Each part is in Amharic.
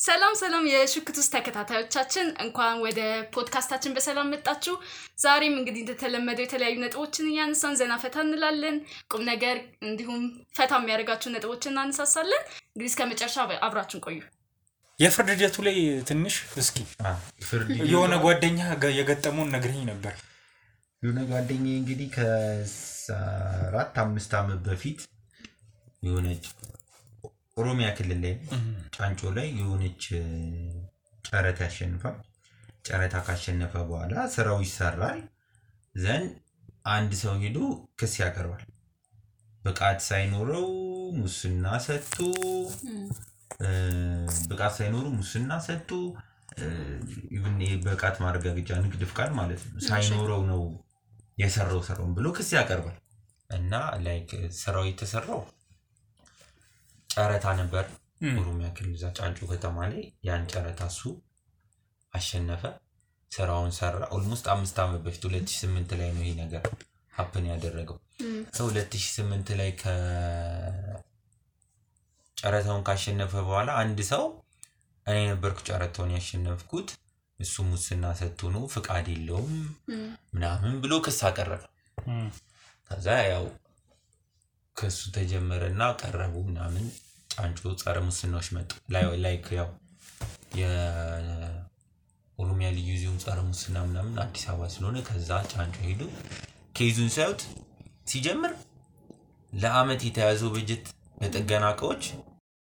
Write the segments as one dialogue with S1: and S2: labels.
S1: ሰላም የሽክቱስ ተከታታዮቻችን እንኳን ወደ ፖድካስታችን በሰላም መጣችሁ። ዛሬም እንግዲህ እንደተለመደው የተለያዩ ነጥቦችን ያነሳን ዘና ፈታ እንላለን። ቁም ነገር እንዲሁም ፈታ የሚያደርጋችሁ ነጥቦችን እናነሳሳለን። እንግዲህ እስከመጨረሻ አብራችሁን ቆዩ።
S2: የፍርድ ሂደቱ ላይ ትንሽ እስኪ የሆነ ጓደኛ የገጠመውን ነግረኝ ነበር።
S3: የሆነ ጓደኛዬ እንግዲህ ከ4-5 ዓመት በፊት የሆነች ኦሮሚያ ክልል ላይ ጫንጮ ላይ የሆነች ጨረታ ያሸንፋል። ጨረታ ካሸነፈ በኋላ ስራው ይሰራል። ዘን አንድ ሰው ሄዶ ክስ ያቀርባል። ብቃት ሳይኖረው ሙስና ሰጥቶ ኢቭን የብቃት ማረጋገጫ ንግድ ፍቃድ ማለት ነው ሳይኖረው ነው የሰራው ብሎ ክስ ያቀርባል። እና ላይክ ስራው የተሰራው ጨረታ ነበር ኦሮሚያ ክልል ጫንጮ ከተማ ላይ። ያን ጨረታ እሱ አሸነፈ፣ ስራውን ሰራ። ኦልሞስት 5 ዓመት በፊት 2008 ላይ ነው ይሄ ነገር ሀፕን ያደረገው። 2008 ላይ ጨረታውን ካሸነፈ በኋላ አንድ ሰው እኔ ነበርኩ ጨረታውን ያሸነፍኩት እሱ ሙስና ሰጥቶ ነው ፍቃድ የለውም ምናምን ብሎ ክስ አቀረበ። ከዛ ያው ክሱ ተጀመረና ቀረቡ ምናምን ጫንጮ ጸረ ሙስናዎች መጡ። ላይክ ያው የኦሮሚያ ልዩ ዞን ጸረ ሙስና ምናምን አዲስ አበባ ስለሆነ ከዛ ጫንጮ ሄዱ ኬዙን ሳይውት ሲጀምር ለአመት የተያዘው በጀት ለጥገና እቃዎች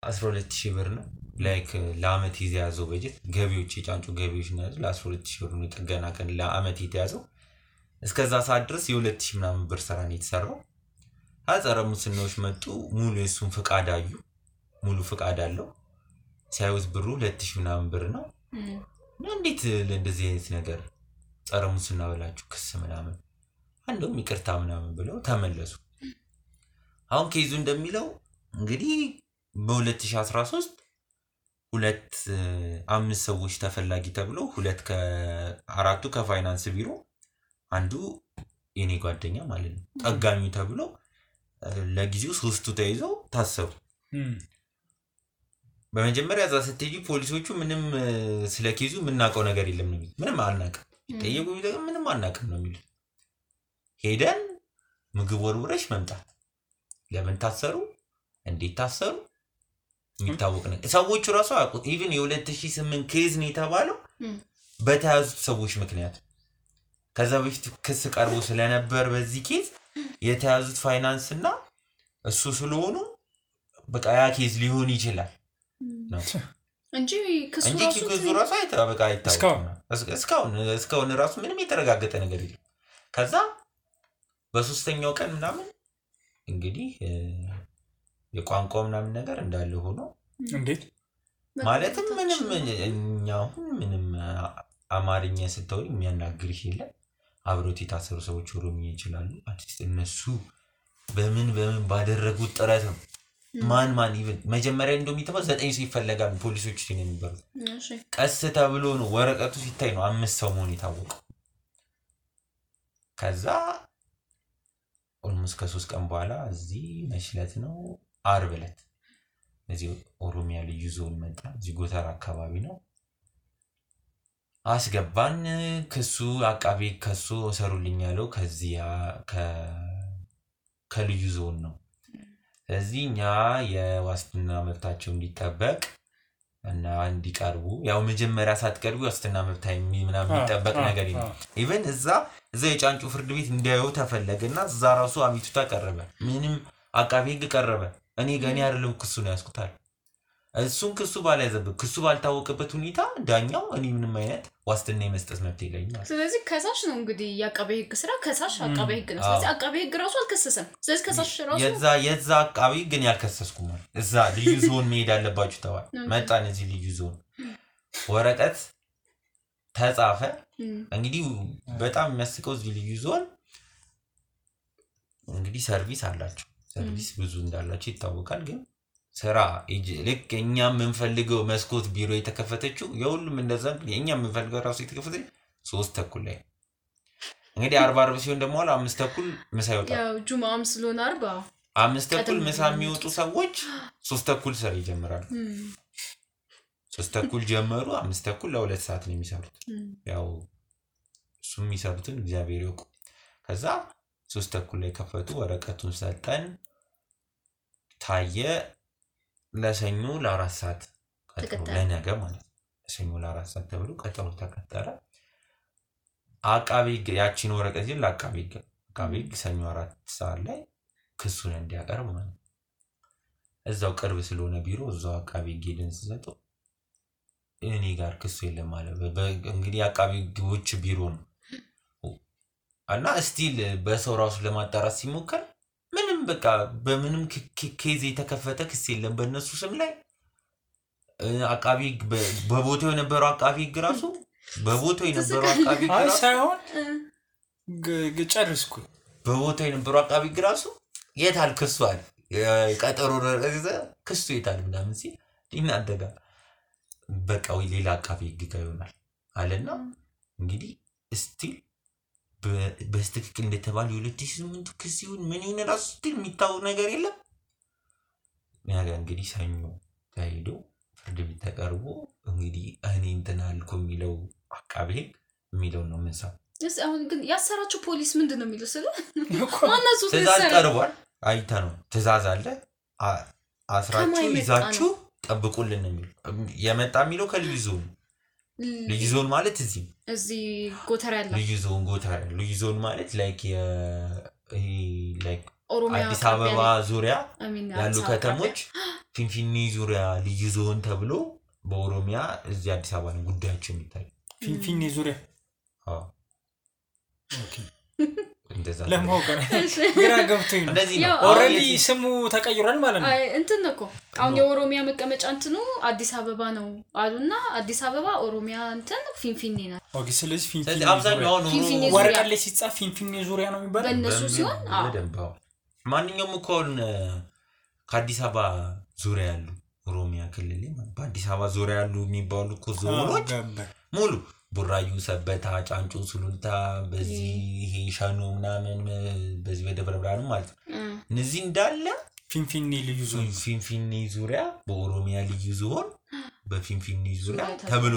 S3: 12000 ብር ነው። ላይክ ለአመት የተያዘው በጀት ገቢዎች የጫንጮ ገቢዎች ነው ለ12000 ብር ነው ጥገና ቀን ለአመት የተያዘው። እስከዛ ሰዓት ድረስ የ2000 ምናምን ብር ስራ ነው የተሰራው። ጸረ ሙስናዎች መጡ፣ ሙሉ የሱን ፍቃድ አዩ። ሙሉ ፍቃድ አለው። ሳይውት ብሩ 2000 ምናምን ብር ነው። እንዴት ለእንደዚህ አይነት ነገር ጸረ ሙስና ብላችሁ ክስ ምናምን አንዱም ይቅርታ ምናምን ብለው ተመለሱ። አሁን ኬዙ እንደሚለው እንግዲህ በ2013 5 ሰዎች ተፈላጊ ተብለው 4ቱ ከፋይናንስ ቢሮ አንዱ የኔ ጓደኛ ማለት ነው ጠጋኙ ተብሎ ለጊዜው 3ቱ ተይዘው ታሰሩ። በመጀመሪያ እዛ ስትሄጂ ፖሊሶቹ ምንም ስለ ኬዙ ምናቀው ነገር የለም ነው የሚሉት። ምንም አልናቀም ጠየቁ ቢጠየቁ ምንም አልናቀም ነው የሚሉት። ሄደን ምግብ ወርውረሽ መምጣት። ለምን ታሰሩ እንዴት ታሰሩ የሚታወቅ ነገር ሰዎቹ ራሱ አያውቁት። ኢቭን የ2008 ኬዝ ነው የተባለው በተያዙት ሰዎች ምክንያት። ከዛ በፊት ክስ ቀርቦ ስለነበር በዚህ ኬዝ የተያዙት ፋይናንስ እና እሱ ስለሆኑ በቃ ያ ኬዝ ሊሆን ይችላል ነው
S1: እንጂ
S3: ክሱ ራሱ አይታወቅም። እስካሁን ራሱ ምንም የተረጋገጠ ነገር የለም። ከዛ በሶስተኛው ቀን ምናምን እንግዲህ የቋንቋው ምናምን ነገር እንዳለ ሆኖ
S2: እንዴት
S3: ማለትም ምንም አማርኛ ስተውል የሚያናግርሽ የለም። አብሮት የታሰሩ ሰዎች ኦሮሚያ ይችላሉ። አዲስ እነሱ በምን ባደረጉት ጥረት ነው ማን ኢቭን መጀመሪያ እንደሚተባው 9 ሰው ይፈልጋሉ ፖሊሶች ሲነው የሚባሉት። ቀስ ተብሎ ነው ወረቀቱ ሲታይ ነው 5 ሰው መሆን የታወቀው። ከዛ ኦልሞስት ከ3 ቀን በኋላ እዚህ መሽለት ነው አርብ ዕለት እዚህ ኦሮሚያ ልዩ ዞን መጣ። እዚህ ጎተራ አካባቢ ነው አስገባን። ክሱ አቃቤ ከሱ ሰሩልኝ ያለው ከዚያ ከልዩ ዞን ነው። ስለዚህ እኛ የዋስትና መብታቸው እንዲጠበቅ እና እንዲቀርቡ ያው መጀመሪያ ሳትቀርቡ ዋስትና መብታ ምናምን የሚጠበቅ ነገር የለም። ኢቭን እዛ የጫንጮ ፍርድ ቤት እንዲያዩ ተፈለገና እዛ ራሱ አቤቱታ ቀረበ። ምንም አቃቤ ህግ ቀረበ። እኔ ገና አይደለም ክሱ ነው ያስኩታል። እሱን ክሱ ባላይዘበት ክሱ ባልታወቀበት ሁኔታ ዳኛው እኔ ምንም አይነት ዋስትና የመስጠት መብት የለኝም።
S1: ስለዚህ ከሳሽ ነው እንግዲህ ያቃቤ ህግ ስራ ከሳሽ አቃቤ ህግ ነው። ስለዚህ አቃቤ ህግ ራሱ አልከሰሰም። ስለዚህ ከሳሽ ራሱ
S3: የዛ አቃቤ ግን ያልከሰስኩም ማለት እዛ ልዩ ዞን መሄድ አለባችሁ ተባለ። መጣን እዚህ ልዩ ዞን ወረቀት ተጻፈ። እንግዲህ በጣም የሚያስቀው እዚህ ልዩ ዞን እንግዲህ ሰርቪስ አላቸው። ሰርቪስ ብዙ እንዳላቸው ይታወቃል። ግን ስራ ልክ እኛ የምንፈልገው መስኮት ቢሮ የተከፈተችው የሁሉም እንደዛ እኛ የምንፈልገው ራሱ የተከፈተች 3:30 ላይ እንግዲህ 40 ሲሆን ደግሞ 5:30 ምሳ ይወጣል።
S1: ያው ጁማም ስለሆነ
S3: 5:30 ምሳ የሚወጡ ሰዎች 3:30 ስራ ይጀምራሉ። 3:30 ጀመሩ 5:30 ለ2 ሰዓት ነው የሚሰሩት ያው እሱም የሚሰሩትን እግዚአብሔር ይወቁ ከዛ 3:30 ላይ ከፈቱ ወረቀቱን ሰጠን ታየ ለሰኞ ለ4 ሰዓት ቀጠሮ ለነገ ማለት ለሰኞ ለ4 ሰዓት ተብሎ ቀጠሮ ተቀጠረ አቃቤ ያቺን ወረቀት ይል አቃቤ ሰኞ 4 ሰዓት ላይ ክሱን እንዲያቀርብ ማለት እዛው ቅርብ ስለሆነ ቢሮ እዛው አቃቤ ጌልን ሲሰጠው እኔ ጋር ክሱ የለም ማለት እንግዲህ አቃቤ ግቦች ቢሮ ነው እና ስቲል በሰው ራሱ ለማጣራት ሲሞከር ምንም በቃ በምንም ኬዝ የተከፈተ ክስ የለም በእነሱ ስም ላይ አቃቤ በቦታው የነበረው አቃቤ ግራሱ በቦታው የነበረው አቃቤ ግራሱ
S2: ሳይሆን ጨርስኩ
S3: በቦታው የነበረው አቃቤ ግራሱ የታል ክሱ አለ ቀጠሮ ክሱ የታል ምናምን ሲል ይናደጋ በቃ ወይ ሌላ አቃቤ ግጋ ይሆናል አለና እንግዲህ ስቲል በስትክክል እንደተባለ 2008 ክስ ይሁን ምን ይሁን ራሱ ስቲል የሚታወቅ ነገር የለም ነገር እንግዲህ ሰኞ ታይዶ ፍርድ ቤት ተቀርቦ እንግዲህ እኔ እንትን አልኩ የሚለው አቃቤ የሚለው ነው ምንሳው
S1: አሁን ግን ያሰራችሁ ፖሊስ ምንድነው የሚለው ስለ ማነሱ
S3: ትእዛዝ ቀርቧል አይታ ነው ትእዛዝ አለ አስራችሁ ይዛችሁ ጠብቁልን የሚል የመጣ የሚለው ከልዩ ዞን ማለት እዚህ
S1: ጎተራ ያለ
S3: ልዩ ዞን ማለት ላይክ አዲስ አበባ ዙሪያ ያሉ ከተሞች ፊንፊኔ ዙሪያ ልዩ ዞን ተብሎ በኦሮሚያ እዚህ አዲስ አበባ ነው ጉዳያቸው የሚታይ
S2: ፊንፊኔ ዙሪያ ኦኬ
S3: እንደዛ
S2: ለማወቅ ግራ ገብቶኝ ነው ኦሬዲ ስሙ ተቀይሯል ማለት ነው
S1: እንትን ነው አሁን የኦሮሚያ መቀመጫ እንትኑ አዲስ አበባ ነው አሉና አዲስ አበባ ኦሮሚያ እንትን ፊንፊኔ ነው
S2: ኦኬ ስለዚህ ፊንፊኔ
S3: አብዛኛው ነው
S2: ወረቀት ላይ ሲጻፍ ፊንፊኔ ዙሪያ ነው የሚባለው
S1: በእነሱ ሲሆን
S3: በደንባው ማንኛውም ኮን ከአዲስ አበባ ዙሪያ ያሉ ኦሮሚያ ክልል ማለት በአዲስ አበባ ዙሪያ ያሉ የሚባሉ ዞኖች ሙሉ ቡራዩ ሰበታ ጫንጮ ሱሉልታ በዚህ ይሄ ሻኖ ምናምን በዚህ በደብረ ብርሃን ማለት እነዚህ እንዳለ ፊንፊኔ ዙሪያ በኦሮሚያ ልዩ ዞን በፊንፊኔ ዙሪያ ተብሎ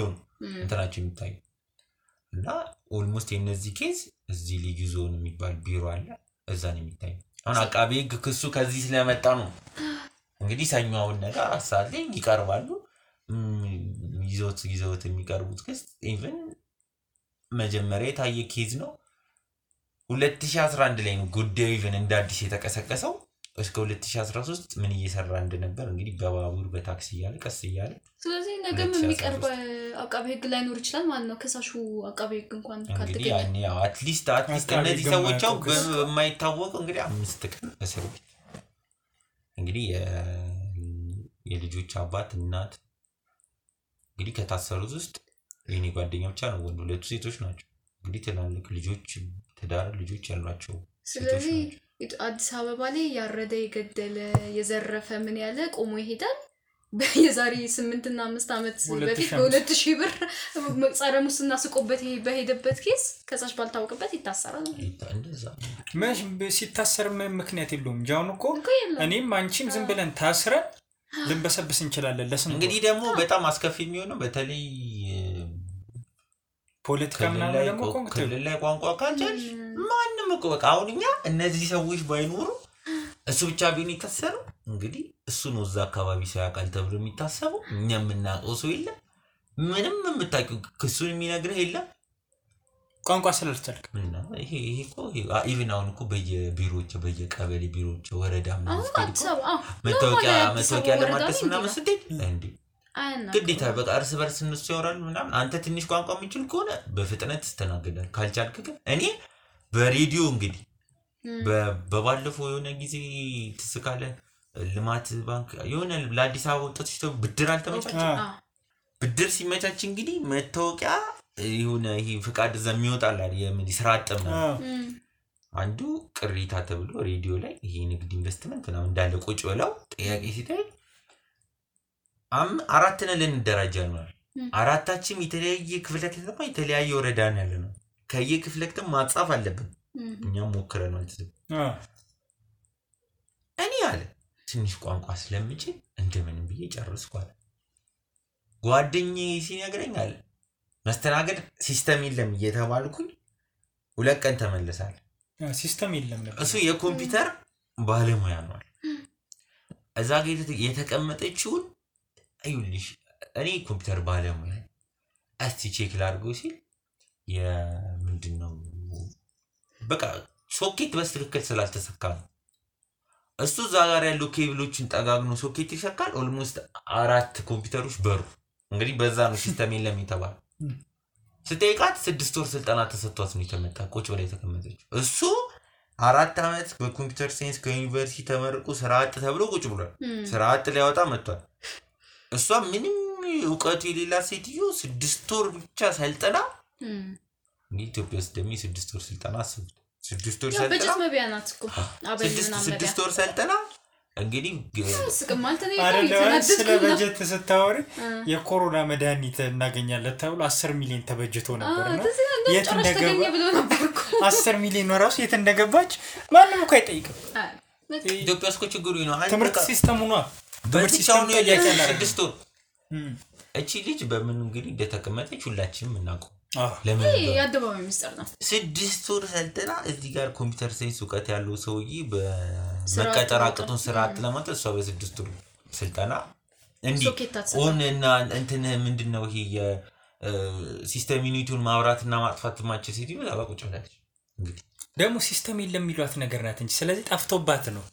S3: እንትናቸው የሚታይ እና ኦልሞስት የነዚህ ኬዝ እዚህ ልዩ ዞን የሚባል ቢሮ አለ እዛ ነው የሚታይ አሁን አቃቤ ክሱ ከዚህ ስለመጣ ነው እንግዲህ ሰኞውን ነገር አሳለኝ ይቀርባሉ ይዘውት የሚቀርቡት ክስ ኢቭን መጀመሪያ የታየ ኬዝ ነው 2011 ላይ ነው ጉዳዩ ኢቭን እንደ አዲስ የተቀሰቀሰው እስከ 2013 ምን እየሰራ እንደነበር እንግዲህ በባቡር በታክሲ ያለ ቀስ ያለ
S1: ስለዚህ ነገም የሚቀርብ አቃቤ ህግ ላይ ኖር ይችላል ማለት ነው ከሳሹ አቃቤ ህግ እንኳን
S3: ካልተገኘ ያኔ አትሊስት እነዚህ ሰዎች በማይታወቁ እንግዲህ 5 ቀን እስር ቤት እንግዲህ የልጆች አባት እናት እንግዲህ ከታሰሩት ውስጥ የኔ ጓደኛ ብቻ ነው ወንድ ሁለቱ ሴቶች ናቸው እንግዲህ ትላልቅ ልጆች ትዳር ልጆች ያሏቸው
S1: ስለዚህ አዲስ አበባ ላይ ያረደ የገደለ የዘረፈ ምን ያለ ቆሞ ይሄዳል በየዛሬ 8 እና 5 አመት በፊት በ2000 ብር ጸረ ሙስና ስቆበት በሄደበት ኬስ ከሳሽ ባልታወቀበት ይታሰራል
S3: እንደዛ
S2: መሽ ሲታሰር ምክንያት የለውም ጃውን እኮ እኔም አንቺም ዝም ብለን ታስረን ልንበሰብስ እንችላለን ለስም
S3: እንግዲህ ደግሞ በጣም አስከፊ የሚሆነው በተለይ
S2: ፖለቲካ ምናምን ደግሞ
S3: ክልል ላይ ቋንቋ ካንጨል ማንንም እኮ በቃ አሁንኛ እነዚህ ሰዎች ባይኖሩ እሱ ብቻ ቢሆን ይታሰሩ እንግዲህ እሱ ነው እዛ አካባቢ ሰው ያቃል ተብሎ የሚታሰበው እኛ የምናውቀው ሰው የለም ምንም የምታውቂው ክሱን የሚነግርህ የለም
S2: ቋንቋ ስላልቻልክ
S3: ምንና ይሄ እኮ ኢቭን አሁን እኮ በየቢሮዎች በየቀበሌ ቢሮዎች ወረዳ መታወቂያ ለማድረስ ምናምን ስትይ እንዴ ግዴታ በቃ እርስ በርስ እነሱ ያወራሉ ምናምን አንተ ትንሽ ቋንቋ የሚችል ከሆነ በፍጥነት ተስተናገዳል ካልቻልክ ግን እኔ በሬዲዮ እንግዲህ በባለፈው የሆነ ጊዜ ተስካለ ልማት ባንክ የሆነ ለአዲስ አበባ ወጣቶች ብድር አልተመቻቸ ብድር ሲመቻች እንግዲህ መታወቂያ የሆነ ይሄ ፍቃድ ዘሚወጣል አይደል ስራ አጥም አንዱ ቅሪታ ተብሎ ሬዲዮ ላይ ይሄ ንግድ ኢንቨስትመንት ነው እንዳለ ቁጭ ብለው ጥያቄ ሲታይ አራት ነን ልንደራጃ ነው አራታችን የተለያየ ክፍለ ከተማ የተለያየ ወረዳ ነው ያለነው ከየክፍለ ከተማ ማጻፍ አለብን እኛም ሞክረናል እኔ አለ ትንሽ ቋንቋ ስለምችል እንደምን ብዬ ጨርስኳል ጓደኛዬ ሲነግረኛል መስተናገድ ሲስተም የለም እየተባልኩኝ 2 ቀን ተመለሳል
S2: ሲስተም የለም ነበር
S3: እሱ የኮምፒውተር ባለሙያ ነው እዛ ጋር የተቀመጠችው አይውልሽ እኔ ኮምፒውተር ባለሙያ እስቲ ቼክ ላድርገው ሲል የምንድነው በቃ ሶኬት በስትክክል ስላልተሰካ ነው እሱ እዛ ጋር ያለው ኬብሎችን ጠጋግኖ ሶኬት ይሰካል ኦልሞስት 4 ኮምፒውተሮች በሩ እንግዲህ በዛ ነው ሲስተም የለም የተባለው ስትጠይቃት 6 ወር ስልጠና ተሰጥቷት ነው የተመጣ ቁጭ ብላ የተቀመጠችው እሱ 4 አመት በኮምፒውተር ሳይንስ ከዩኒቨርሲቲ ተመርቆ ስራ አጥ ተብሎ ቁጭ ብሏል ስራ አጥ ሊያወጣ መጥቷል እሷ ምንም ዕውቀት የሌላ ሴትዮ 6 ወር ብቻ ሰልጠና ኢትዮጵያ ውስጥ ደሚ 6 ወር ስልጠና አስቡት 6 ወር ሰልጠና
S1: በጀት መቢያናት እኮ
S3: አበልና 6 ወር ሰልጠና እንግዲህ
S1: ስቅማልተ ነው
S2: ስለ በጀት ስታወሪ የኮሮና መድኃኒት እናገኛለን ተብሎ 10 ሚሊዮን ተበጅቶ ነበርና የት እንደገባ 10 ሚሊዮን ነው ራሱ የት እንደገባች ማንንም እኮ አይጠይቅም
S3: ኢትዮጵያ ውስጥ ችግሩ ነው
S2: ትምህርት ሲስተሙ ነው
S3: በሲስተሙ ነው ያያለ 6 ወር እቺ ልጅ በምን እንግዲህ እንደተቀመጠች ሁላችንም እናውቀው
S1: ለምን ያደባው ሚስጥር ነው
S3: 6 ወር ሰልጠና እዚህ ጋር ኮምፒውተር ሳይንስ ዕውቀት ያለው ሰውዬ በመቀጠር አቅቶን ስራ አጥለማት እሷ በ6 ወር ስልጠና እንዴ ኦንና እንትን ምንድነው ይሄ የሲስተም ዩኒቲውን ማብራትና ማጥፋት ማችል ሲቲ ነው አባቁጭ ብላለች እንግዲህ
S2: ደግሞ ሲስተም የለም የሚሏት ነገር ናት እንጂ ስለዚህ ጠፍቶባት ነው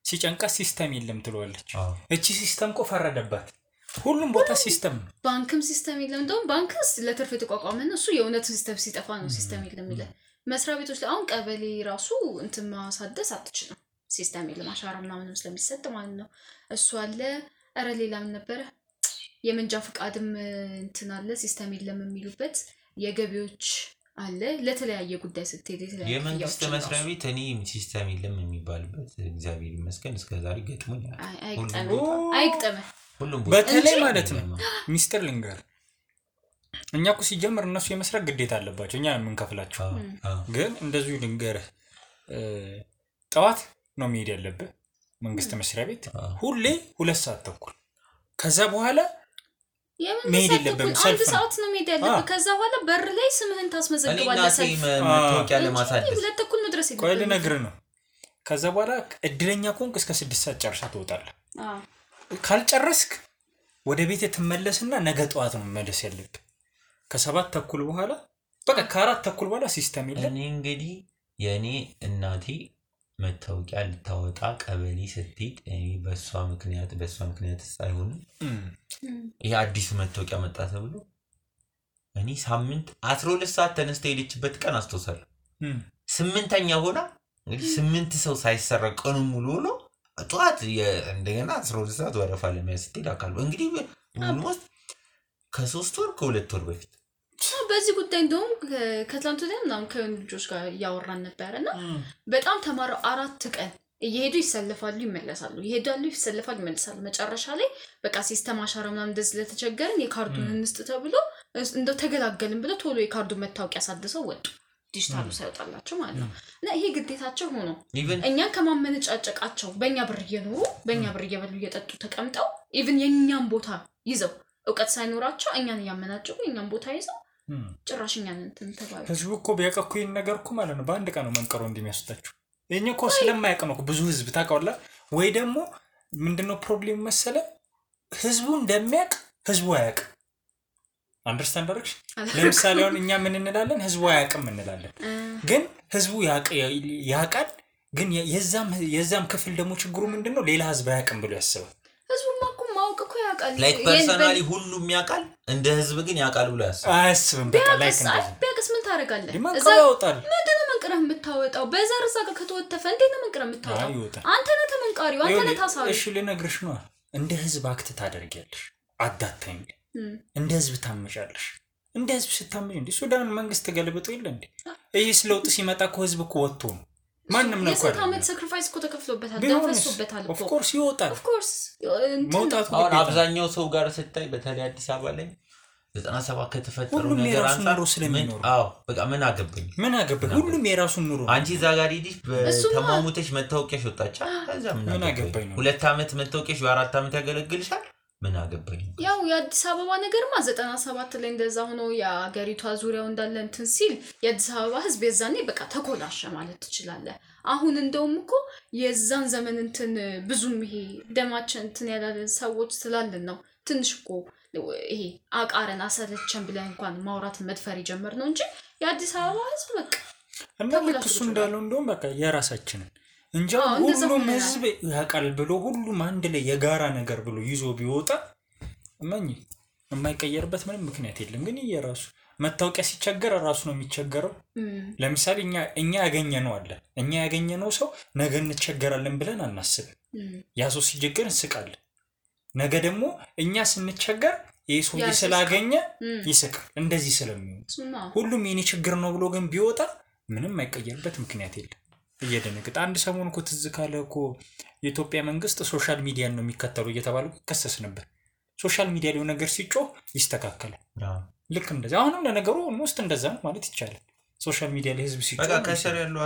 S2: ሲጨንቃ ሲስተም የለም ትሏለች እቺ ሲስተም እኮ ፈረደባት ሁሉም ቦታ ሲስተም
S1: ባንክም ሲስተም የለም እንደውም ባንክስ ለትርፍ የተቋቋመ ነው እሱ የእውነት ሲስተም ሲጠፋ ነው ሲስተም የለም ይላል መስሪያ ቤቶች ላይ አሁን ቀበሌ ራሱ እንትን ማሳደስ አትችልም ሲስተም የለም አሻራ ምናምንም ስለሚሰጥ ማለት ነው እሱ አለ አረ ሌላ ምን ነበር የመንጃ ፍቃድም እንትን አለ ሲስተም የለም የሚሉበት የገቢዎች አለ ለተለያየ ጉዳይ ስትሄድ የተለያየ
S3: የመንግስት መስሪያ ቤት እኔ ሲስተም የለም የሚባልበት እግዚአብሔር ይመስገን እስከዛሬ ገጥሞኛል
S1: አይግጠም
S3: ሁሉም
S2: በተለይ ማለት ነው ሚስተር ሊንገር እኛ እኮ ሲጀምር እነሱ የመስራት ግዴታ አለባቸው እኛ የምንከፍላቸው ግን እንደዚሁ ሊንገር ጠዋት ነው መሄድ ያለበት መንግስት መስሪያ ቤት ሁሌ 2 ሰዓት ተኩል ከዛ በኋላ መሄድ የለብም
S1: ሰልፍ ሰዓት ነው መሄድ ያለበት ከዛ በኋላ በር ላይ ስምህን ታስመዘግባለህ
S3: ሰልፍ መታወቂያ ለማሳደስ
S1: 2 ተኩል መድረስ ይችላል
S2: ቆይ ልነግርህ ነው ከዛ በኋላ እድለኛ ኮንክ እስከ 6 ሰዓት ጨርሳ ትወጣለህ ካልጨረስክ ወደ ቤት ተመለስና ነገ ጠዋት ነው መመለስ ያለብህ ከ7 ተኩል በኋላ በቃ ከ4 ተኩል በኋላ ሲስተም የለም
S3: እኔ እንግዲህ የኔ እናቴ መታወቂያ ልታወጣ ቀበሌ ስትሄድ እኔ በሷ ምክንያት ሳይሆን ይሄ አዲስ መታወቂያ መጣ ተብሎ እኔ ሳምንት 12 ሰዓት ተነስተ ሄደችበት ቀን አስተውሳለሁ 8ኛ ሆና እንግዲህ 8 ሰው ሳይሰረቅ ቀኑ ሙሉ ነው ጧት እንደገና 12 ሰዓት ወረፋ ለሚያስተል አካል እንግዲህ ኦልሞስት ከ3 ወር ከ2 ወር በፊት
S1: በዚህ ጉዳይ እንደውም ከትላንቱ ላይ ከልጆች ጋር ያወራን ነበርና በጣም ተማረው 4 ቀን እየሄዱ ይሰለፋሉ ይመለሳሉ ይሄዳሉ ይሰለፋሉ ይመለሳሉ መጨረሻ ላይ በቃ ሲስተም አሻራ ምናምን እንደዚህ ለተቸገረን የካርዱን እንስጥ ተብሎ እንደው ተገላገልን ብለው ቶሎ የካርዱን መታወቂያ አሳድሰው ወጡ ዲጂታሉ ሳይወጣላቸው ማለት ነው እና ይሄ ግዴታቸው ሆኖ እኛን ከማመነጫጨቃቸው በእኛ ብር እየኖሩ በእኛ ብር እየበሉ እየጠጡ ተቀምጠው ኢቭን የኛን ቦታ ይዘው ዕውቀት ሳይኖራቸው እኛን ያመናጨቁ የኛን ቦታ ይዘው ጭራሽኛን እንትን ተባለ
S2: ህዝቡ እኮ ቢያቀኩ ይሄን ነገር እኮ ማለት ነው በአንድ ቀን ነው መንቀሮ እንደሚያስወጣቸው የኛ እኮ ስለማያውቅ ነው ብዙ ህዝብ ታውቃውላ ወይ ደግሞ ምንድነው ፕሮብሌም መሰለ ህዝቡ እንደሚያውቅ ህዝቡ አያውቅ አንደርስታንድ አድርግሽ ለምሳሌ አሁን እኛ ምን እንላለን ህዝቡ አያውቅም እንላለን ግን ህዝቡ ያውቃል ግን የዛም ክፍል ደግሞ ችግሩ ምንድነው ሌላ ህዝብ አያውቅም ብሎ ያስባል
S1: ህዝቡማ እኮ ማወቅ እኮ ያውቃል
S3: ላይክ ፐርሰናሊ ሁሉም ያውቃል እንደ ህዝብ ግን ያውቃል ብሎ ያስባል
S2: አያስብም በቃ ላይክ እንደዚህ
S1: ቢያቅስ ምን ታረጋለህ
S2: እዛ ያወጣል
S1: ምንድነው መንቀረህ የምታወጣው በዛር እዛ ጋር ከተወተፈ እንዴት ነው መንቀረህ የምታወጣው አንተ ነህ ተመንቃሪው አንተ ነህ ታሳቢ
S2: እሺ ልነግርሽ ነው እንደ ህዝብ አክት ታደርጊያለሽ አዳታኝ እንደ ህዝብ ታመጫለሽ እንደ ህዝብ ስታመጭ እንዴ ሱዳን መንግስት ተገልብጦ ይለ እንዴ እይስ ለውጥ ሲመጣ እኮ ህዝብ እኮ ወጥቶ ነው ማንንም ነው እኮ
S1: የሰታመት ሳክሪፋይስ እኮ ተከፍሎበታል ደፈሶበታል
S2: ኦፍ ኮርስ ይወጣል
S1: ኦፍ ኮርስ
S2: መውጣቱ
S3: አሁን አብዛኛው ሰው ጋር ስታይ በተለይ አዲስ አበባ ላይ 97 ከተፈጠሩ ነገር አንፃር
S2: ስለሚኖር
S3: በቃ ምን አገባኝ
S2: ሁሉም የራሱን ኑሮ
S3: አንቺ ዛጋሪ ዲሽ በተማሙተሽ መታወቂያሽ ወጣቻ ከዛ ምን አገባኝ 2 አመት መታወቂያሽ 4 አመት ያገለግልሻል ምን አገባኝ
S1: ያው የአዲስ አበባ ነገርማ 97 ላይ እንደዛ ሆኖ የአገሪቷ ዙሪያው እንዳለ እንትን ሲል የአዲስ አበባ ህዝብ የዛኔ በቃ ተኮላሸ ማለት ትችላለህ አሁን እንደውም እኮ የዛን ዘመን እንትን ብዙም ይሄ ደማችን እንትን ያላለ ሰዎች ስላልን ነው ትንሽ እኮ ይሄ አቃረን አሰለቸን ብለን እንኳን ማውራት መድፈር ይጀምር ነው እንጂ የአዲስ አበባ ህዝብ በቃ
S2: እና ልክ እሱ እንዳለው እንደውም በቃ የራሳችንን እንጂ ሁሉም ህዝብ ያቃል ብሎ ሁሉም አንድ ላይ የጋራ ነገር ብሎ ይዞ ቢወጣ ማኝ የማይቀየርበት ምንም ምክንያት የለም ግን የራሱ መታወቂያ ሲቸገር ራሱ ነው የሚቸገረው ለምሳሌ እኛ ያገኘነው አለ እኛ ያገኘነው ሰው ነገ እንቸገራለን ብለን አናስብም ያ ሰው ሲቸገር እንስቃለን ነገ ደግሞ እኛ ስንቸገር የሰው ስላገኘ ይስቃል እንደዚህ ስለሚሆን ሁሉም የኔ ችግር ነው ብሎ ግን ቢወጣ ምንም አይቀየርበት ምክንያት የለም እየደነገጠ አንድ ሰሞን እኮ ትዝ ካለ እኮ የኢትዮጵያ መንግስት ሶሻል ሚዲያን ነው የሚከተሉ እየተባሉ ከሰስ ነበር ሶሻል ሚዲያ ላይ ነገር ሲጮህ ይስተካከላል ልክ እንደዛ አሁንም ለነገሩ ሞስት እንደዛ ማለት ይቻላል ሶሻል ሚዲያ ላይ ህዝብ ሲጮህ
S3: በቃ ከሰር ያለው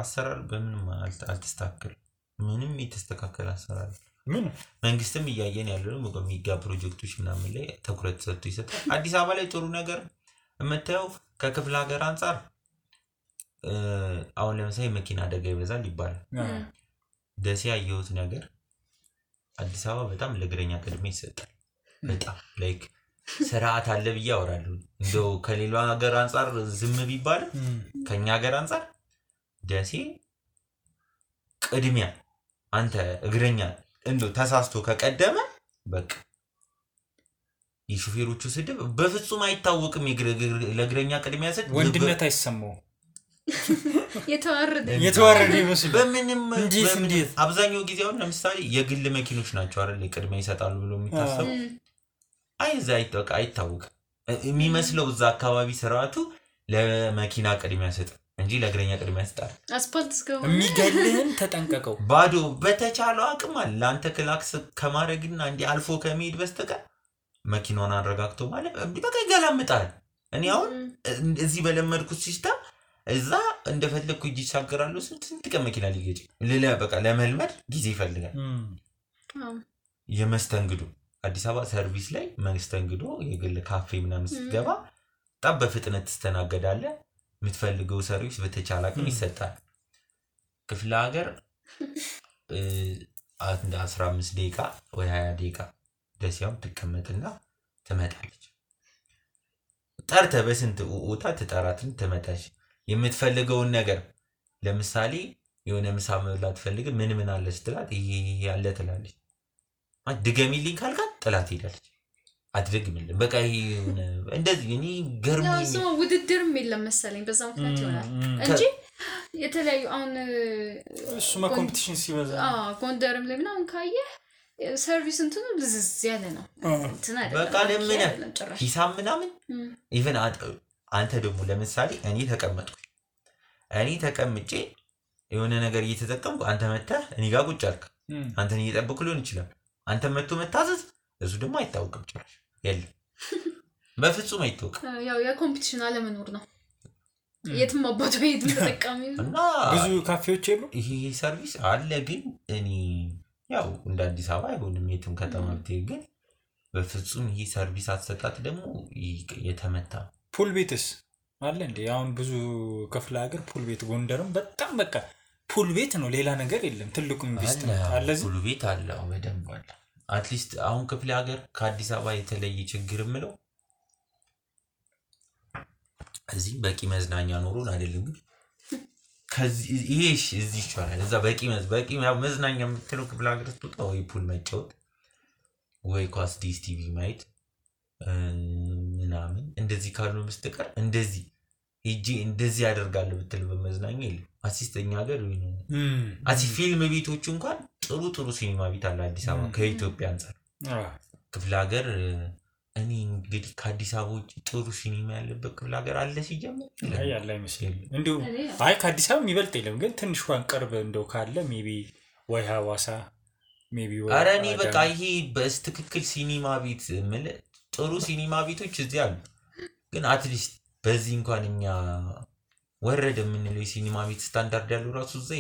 S3: አሰራር በምንም አልተስተካከለ ምንም የተስተካከለ አሰራር
S2: ምን
S3: መንግስትም እያየን ያለው ነው በሚጋ ፕሮጀክቶች ምናምን ላይ ትኩረት ሰጥቶ ይሰጣል አዲስ አበባ ላይ ጥሩ ነገር የምታየው ከክፍለ ሀገር አንፃር አሁን ለምሳሌ መኪና አደጋ ይበዛል ይባላል ደሴ ያየሁት ነገር አዲስ አበባ በጣም ለእግረኛ ቅድሚያ ይሰጣል በጣም ላይክ ስርዓት አለ ብዬ አወራለሁ እንደው ከሌላው ሀገር አንፃር ዝም ቢባል ከኛ ሀገር አንፃር ደሴ ቅድሚያ አንተ እግረኛ እንደው ተሳስቶ ከቀደመ በቃ የሹፌሮቹ ስድብ በፍጹም አይታወቅም ለእግረኛ ቅድሚያ ሰጥ
S2: ወንድነት አይሰማው
S1: የተዋረደ
S2: ይመስል
S3: በምንም እንዴት አብዛኛው ጊዜ አሁን ለምሳሌ የግል መኪኖች ናቸው አይደል ቅድሚያ ይሰጣሉ ብሎ የሚታሰቡ አይታወቅም የሚመስለው እዛ አካባቢ ስርዓቱ ለመኪና ቅድሚያ ሰጥ እንጂ ለእግረኛ ቅድሚያ ሰጣል
S1: አስፓልት እስከው
S2: የሚገልህን ተጠንቀቀው
S3: ባዶ በተቻለው አቅም አለ አንተ ክላክስ ከማድረግና እንዲ አልፎ ከመሄድ በስተቀር መኪናውን አረጋግቶ ማለት በቃ ይገላምጣል እኔ አሁን እዚህ በለመድኩት ሲስተም እዛ እንደፈለኩ ይሻገራሉ ስንት ከመኪና ሊገጭ በቃ ለመልመድ ጊዜ ይፈልጋል የመስተንግዶ አዲስ አበባ ሰርቪስ ላይ መስተንግዶ የግል ካፌ ምናምን ስትገባ በጣም በፍጥነት ተስተናገዳለህ የምትፈልገው ሰርቪስ በተቻለ አቅም ይሰጣል ክፍለ ሀገር አንድ 15 ደቂቃ ወይ 20 ደቂቃ ደሲያው ተቀመጥና ተመጣለች ጠርተ በስንት ኡታ ተጣራትን ተመጣች የምትፈልገውን ነገር ለምሳሌ የሆነ ምሳ መብላት ፈልግ ምን አለ ስትላት ይሄ ያለ ትላለች አድገሚልኝ ካልካት ጥላት ሄዳለች አትደግምልኝ በቃ ይሄ እንደዚህ እኔ ገርሞኝ
S1: ያው ሰው ውድድርም የለም መሰለኝ በዛው ምክንያት ይሆናል እንጂ የተለያዩ አሁን
S2: እሱ ኮምፒቲሽን ሲበዛ
S1: ጎንደርም ላይ ምናምን ካየ ሰርቪስ እንትኑ ልዝዝ ያለ ነው እንትና አይደለም
S3: በቃ ለምን ሂሳብ ምናምን ኢቭን አንተ ደግሞ ለምሳሌ እኔ ተቀምጬ የሆነ ነገር እየተጠቀምኩ አንተ መጣህ እኔ ጋር ቁጭ አልክ አንተን እየጠበቅኩ ሊሆን ይችላል አንተ መጥቶ መታዘዝ እሱ ደግሞ አይታወቅም ጭራሽ የለም በፍጹም አይታወቅም
S1: ያው የኮምፒቲሽን አለመኖር ነው የትም አባቱ ሄድ ተጠቃሚ
S3: እና
S2: ብዙ ካፌዎች የሉ
S3: ይሄ ሰርቪስ አለ ግን እኔ ያው እንደ አዲስ አበባ አይሆንም የትም ከተማ ብትሄድ ግን በፍጹም ይሄ ሰርቪስ አሰጣጥ ደግሞ የተመታ
S2: ፑል ቤትስ አለ እንዴ አሁን ብዙ ክፍለ ሀገር ፑል ቤት ጎንደርም በጣም በቃ ፑል ቤት ነው ሌላ ነገር የለም ትልቁ ኢንቨስትመንት አለ
S3: ፑል ቤት አለ በደንብ አለ አትሊስት አሁን ክፍለ ሀገር ከአዲስ አበባ የተለየ ችግር ምለው እዚህ በቂ መዝናኛ ኖሮን አይደለም ግን ከዚህ ይሄሽ እዚህ ይቻላል እዛ በቂ መዝናኛ የምትለው ክፍለ ሀገር ስትወጣ ወይ ፑል መጫወት ወይ ኳስ ዲስ ቲቪ ማየት ምናምን እንደዚህ ካሉ በስተቀር እንደዚህ ሂጂ እንደዚህ ያደርጋል ብትል በመዝናኛ የለም አሲስተኛ ሀገር ወይ ነው ፊልም ቤቶች እንኳን ጥሩ ሲኒማ ቤት አለ አዲስ አበባ ከኢትዮጵያ አንፃር ክፍለ ሀገር እኔ እንግዲህ ከአዲስ አበባ ውጭ ጥሩ ሲኒማ ያለበት ክፍለ ሀገር አለ ሲጀምር
S2: ያለ አይመስልም እንዴው አይ ከአዲስ አበባ የሚበልጥ የለም ግን ትንሽ እንኳን ቅርብ እንደው ካለ ሜቢ ወይ ሐዋሳ ሜቢ ወይ
S3: አረኒ በቃ ይሄ በስትክክል ሲኒማ ቤት ማለት ጥሩ ሲኒማ ቤቶች እዚህ አሉ ግን አትሊስት በዚህ እንኳን እኛ ወረደ የምንለው ሲኒማ ቤት ስታንዳርድ ያለው ራሱ እዛ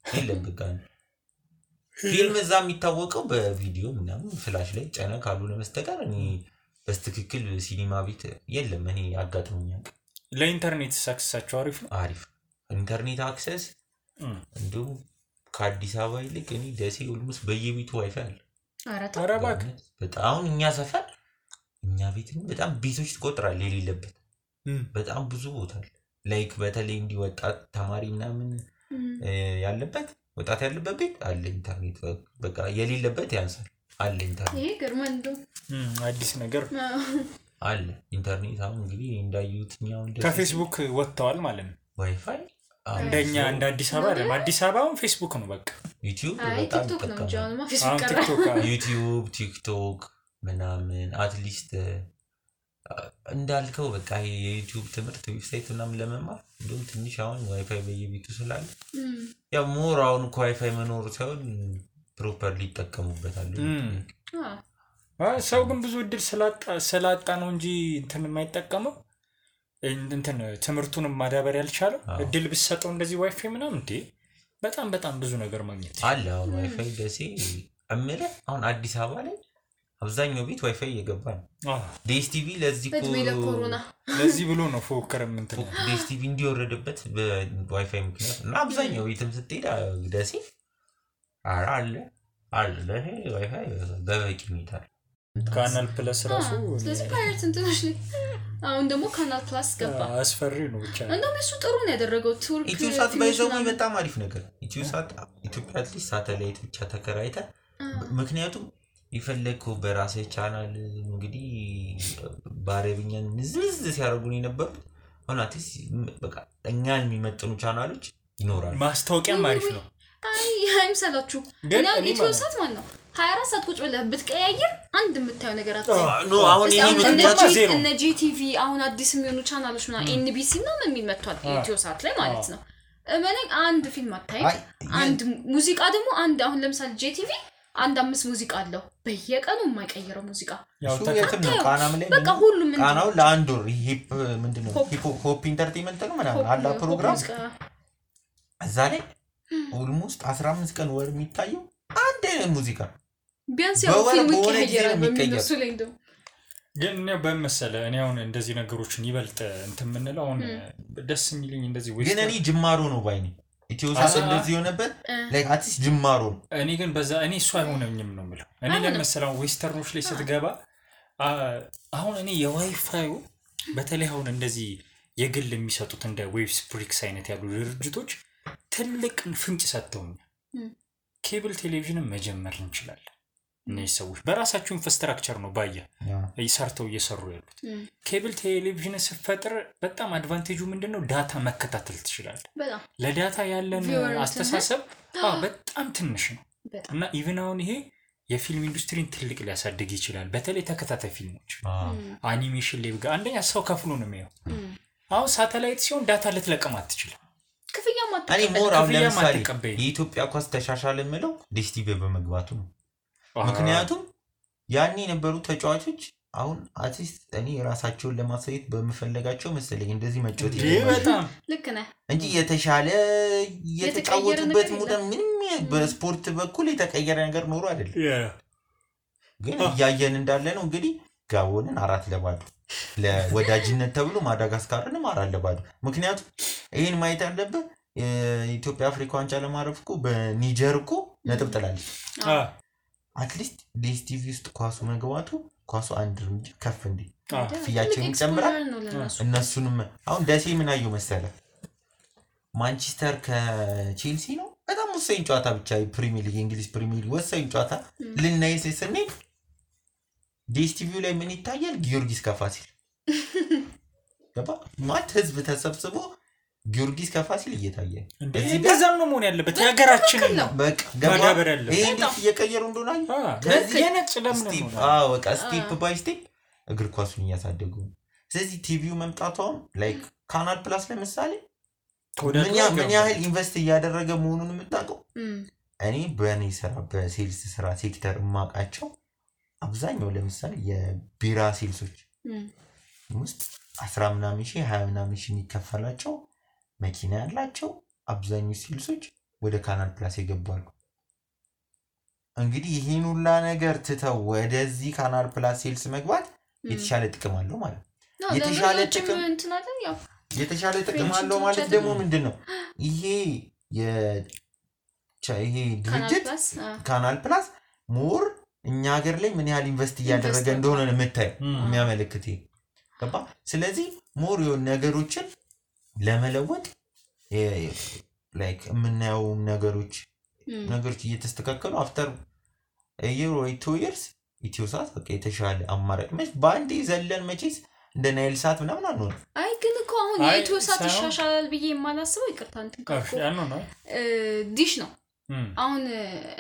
S3: የለም በቃ ፊልም እዛ የሚታወቀው በቪዲዮ ምናምን ፍላሽ ላይ ጫና ካልሆነ በስተቀር እኔ በስትክክል ሲኒማ ቤት የለም። እኔ አጋጥሞኛል።
S2: ለኢንተርኔት አክሰሳቸው
S3: አሪፍ ኢንተርኔት አክሰስ እንዲሁም ከአዲስ አበባ ይልቅ እኔ ደሴ ኦልሞስት በየቤቱ ዋይፋይ አለ።
S1: ኧረ
S3: በጣም እኛ ሰፈር እኛ ቤት በጣም ቤቶች ትቆጥራለህ የሌለበት በጣም ብዙ ቦታ አለ። ላይክ በተለይ እንዲወጣት ተማሪ ምናምን ያለበት ወጣት ያለበት ቤት አለ ኢንተርኔት። በቃ የሌለበት ያንሳል አለ ኢንተርኔት።
S1: ይሄ ገርመንዶ
S2: አዲስ ነገር
S3: አለ ኢንተርኔት። አሁን እንግዲህ እንዳዩትኛው
S2: ከፌስቡክ ወጥተዋል ማለት ነው
S3: ዋይፋይ።
S2: እንደኛ እንደ አዲስ አበባ አይደለም። አዲስ አበባውን ፌስቡክ ነው በቃ።
S3: ዩቲዩብ
S1: በጣም
S3: ተጠቃሚ ዩቲዩብ ቲክቶክ ምናምን አትሊስት እንዳልከው በቃ የዩቲዩብ ትምህርት ዌብሳይት ምናምን ለመማር እንደውም ትንሽ አሁን ዋይፋይ በየቤቱ ስላለ ያው ሞር አሁን ዋይፋይ መኖር ሳይሆን ፕሮፐርሊ ይጠቀሙበታል።
S2: ሰው ግን ብዙ እድል ስላጣ ነው እንጂ እንትን የማይጠቀመው እንትን ትምህርቱንም ማዳበር ያልቻለው እድል ብሰጠው እንደዚህ ዋይፋይ ምናምን እንዴ በጣም ብዙ ነገር ማግኘት
S3: አለ። አሁን ዋይፋይ ደሴ እምለ አሁን አዲስ አበባ ላይ አብዛኛው ቤት ዋይፋይ እየገባ ነው። ዲኤስቲቪ ለዚህ ብሎ ነው ፎከረም እንትን ዲኤስቲቪ እንዲወረደበት በዋይፋይ ምክንያት እና አብዛኛው ቤትም ስትሄድ ደሴ አለ ለሄ ዋይፋይ በበቂ ሁኔታ
S2: ካናል ፕለስ ራሱ
S1: ስለዚህ ፓይሬት እንትኖች ላይ አሁን ደግሞ ካናል ፕለስ ገባ።
S2: አስፈሪ ነው ብቻ
S1: እንደውም እሱ ጥሩ ነው ያደረገው። ቱርክ
S3: ኢትዮሳት ባይዘው በጣም አሪፍ ነገር ኢትዮሳት ኢትዮጵያ አትሊስት ሳተላይት ብቻ ተከራይተ ምክንያቱም ይፈልኩ በራሴ ቻናል እንግዲህ ባረብኛን ንዝዝ ሲያደርጉኝ ነበር። ሆናቲስ በቃ እኛን የሚመጥኑ ቻናሎች ይኖራሉ።
S2: ማስታወቂያም አሪፍ ነው።
S1: አይምሰላችሁ እና ኢትዮሳት ማለት ነው 24 ሰዓት ቁጭ ብለህ ብትቀያየር አንድ የምታየው ነገር
S3: ኖ አሁን ይሄ ምክንያቱ ዜሮ
S1: እነ ጂቲቪ አሁን አዲስ የሚሆኑ ቻናሎች እና ኤንቢሲ እና የሚመጣው ኢትዮሳት ላይ ማለት ነው። እመነኝ አንድ ፊልም አታይ አንድ ሙዚቃ ደግሞ አንድ አሁን ለምሳሌ ጂቲቪ አንድ 5 ሙዚቃ አለው በየቀኑ የማይቀየረው ሙዚቃ
S3: እሱ የትም ነው። ቃናም ላይ
S1: በቃ ሁሉም
S3: ቃናው ለአንድ ወር ሂፕ ምንድነው ሆፕ ኢንተርቴይንመንት ነው ምናምን አላ ፕሮግራም እዛ ላይ ኦልሞስት 15 ቀን ወር የሚታየው አንድ ሙዚቃ
S1: ቢያንስ ያው ፊልም ይቀየራል በሚነሱ ላይ እንደው
S2: ግን ነው በመሰለ እኔ አሁን እንደዚህ ነገሮችን ይበልጥ እንትን ምንለው አሁን ደስ የሚልኝ እንደዚህ
S3: ወይ ግን እኔ ጅማሮ ነው ባይኔ ኢትዮሳት እንደዚህ ሆነበት ላይክ አትስ ጅማሮ
S2: እኔ ግን በዛ እኔ እሱ አይሆነኝም ነው የምለው። እኔ ለምሳሌው ዌስተርኖች ላይ ስትገባ አሁን እኔ የዋይፋዩ በተለይ አሁን እንደዚህ የግል የሚሰጡት እንደ ዌብስ ፕሪክስ አይነት ያሉ ድርጅቶች ትልቅ ፍንጭ ሰጥተውኛል። ኬብል ቴሌቪዥንን መጀመር እንችላለን። እነዚህ ሰዎች በራሳቸው ኢንፍራስትራክቸር ነው ባያ ይሰርተው እየሰሩ ያሉት። ኬብል ቴሌቪዥን ሲፈጥር በጣም አድቫንቴጁ ምንድነው? ዳታ መከታተል ትችላለህ። ለዳታ ያለን አስተሳሰብ በጣም ትንሽ ነው እና ኢቭን አሁን ይሄ የፊልም ኢንዱስትሪን ትልቅ ሊያሳድግ ይችላል። በተለይ ተከታታይ ፊልሞች አኒሜሽን ላይ ጋር አንደኛ ሰው ከፍሎ ነው የሚያየው። አሁን ሳተላይት ሲሆን ዳታ ልትለቀም አትችልም።
S1: ክፍያ
S3: እኔ ሞር አሁን ለምሳሌ የኢትዮጵያ ኳስ ተሻሻለ የምለው ዲኤስቲቪ በመግባቱ ነው። ምክንያቱም ያኔ የነበሩ ተጫዋቾች አሁን አርቲስት እኔ ራሳቸውን ለማሳየት በመፈለጋቸው መሰለኝ እንደዚህ መጫወት
S2: በጣም
S1: ልክ ነህ
S3: እንጂ የተሻለ የተጫወቱበት ሙደ ምንም በስፖርት በኩል የተቀየረ ነገር ኖሮ አይደለም። ግን ያየን እንዳለ ነው እንግዲህ ጋቦንን 4-0 ለወዳጅነት ተብሎ ማዳጋስካርንም 4-0 ምክንያቱም ይሄን ማየት ያለበት ኢትዮጵያ አፍሪካ ዋንጫ ለማረፍ እኮ በኒጀር እኮ ነጥብ ጥላለች። አትሊስት ዲኤስቲቪ ውስጥ ኳሱ መግባቱ ኳሱ አንድ እርምጃ ከፍ እንዲ ፍያችን ይጨምራል። እነሱንም አሁን ደሴ ምን አየው መሰለ ማንቸስተር ከቼልሲ ነው በጣም ወሳኝ ጨዋታ ብቻ ፕሪሚየር ሊግ እንግሊዝ ፕሪሚየር ሊግ ወሳኝ ጨዋታ ልናይስ ስንል ዲኤስቲቪ ላይ ምን ይታያል? ጊዮርጊስ ከፋሲል ገባ ማለት ህዝብ ተሰብስቦ ጊዮርጊስ ከፋሲል እየታየ
S2: እንደዚህ በዛም ነው መሆን ያለበት የሀገራችን ነው።
S3: በቃ ገባበር ያለው ይሄ እንዴት እየቀየሩ እንደሆነ
S2: ከዚህ የነጭ ለምን ነው
S3: በቃ ስቴፕ ባይ ስቴፕ እግር ኳሱን እያሳደጉ። ስለዚህ ቲቪው መምጣቷም ላይክ ካናል ፕላስ ለምሳሌ ምን ያህል ኢንቨስት እያደረገ መሆኑን የምታውቀው እኔ በእኔ ስራ በሴልስ ስራ ሴክተር ማቃቸው አብዛኛው ለምሳሌ የቢራ ሴልሶች ውስጥ 10 ምናምን ሺህ 20 ምናምን ሺህ የሚከፈላቸው መኪና ያላቸው አብዛኛው ሴልሶች ወደ ካናል ፕላስ ይገባሉ። እንግዲህ ይሄን ሁላ ነገር ትተው ወደዚህ ካናል ፕላስ ሴልስ መግባት የተሻለ ጥቅም አለው ማለት ነው። የተሻለ ጥቅም አለው ማለት ደግሞ ምንድነው? ይሄ ድርጅት ካናል ፕላስ ሞር እኛ ሀገር ላይ ምን ያህል ኢንቨስት እያደረገ እንደሆነ ነው የምታየው የሚያመለክት ገባ። ስለዚህ ሞር የሆነ ነገሮችን ለመለወጥ ላይክ የምናየው ነገሮች እየተስተካከሉ አፍተር year or 2 years ኢትዮሳት በቃ የተሻለ አማራጭ በአንዴ ዘለን መቼስ እንደ ናይል ሳት ምናምን አንሆን።
S1: አይ ግን እኮ አሁን የኢትዮሳት ይሻሻላል ብዬ የማላስበው ይቅርታ እንትን ዲሽ ነው። አሁን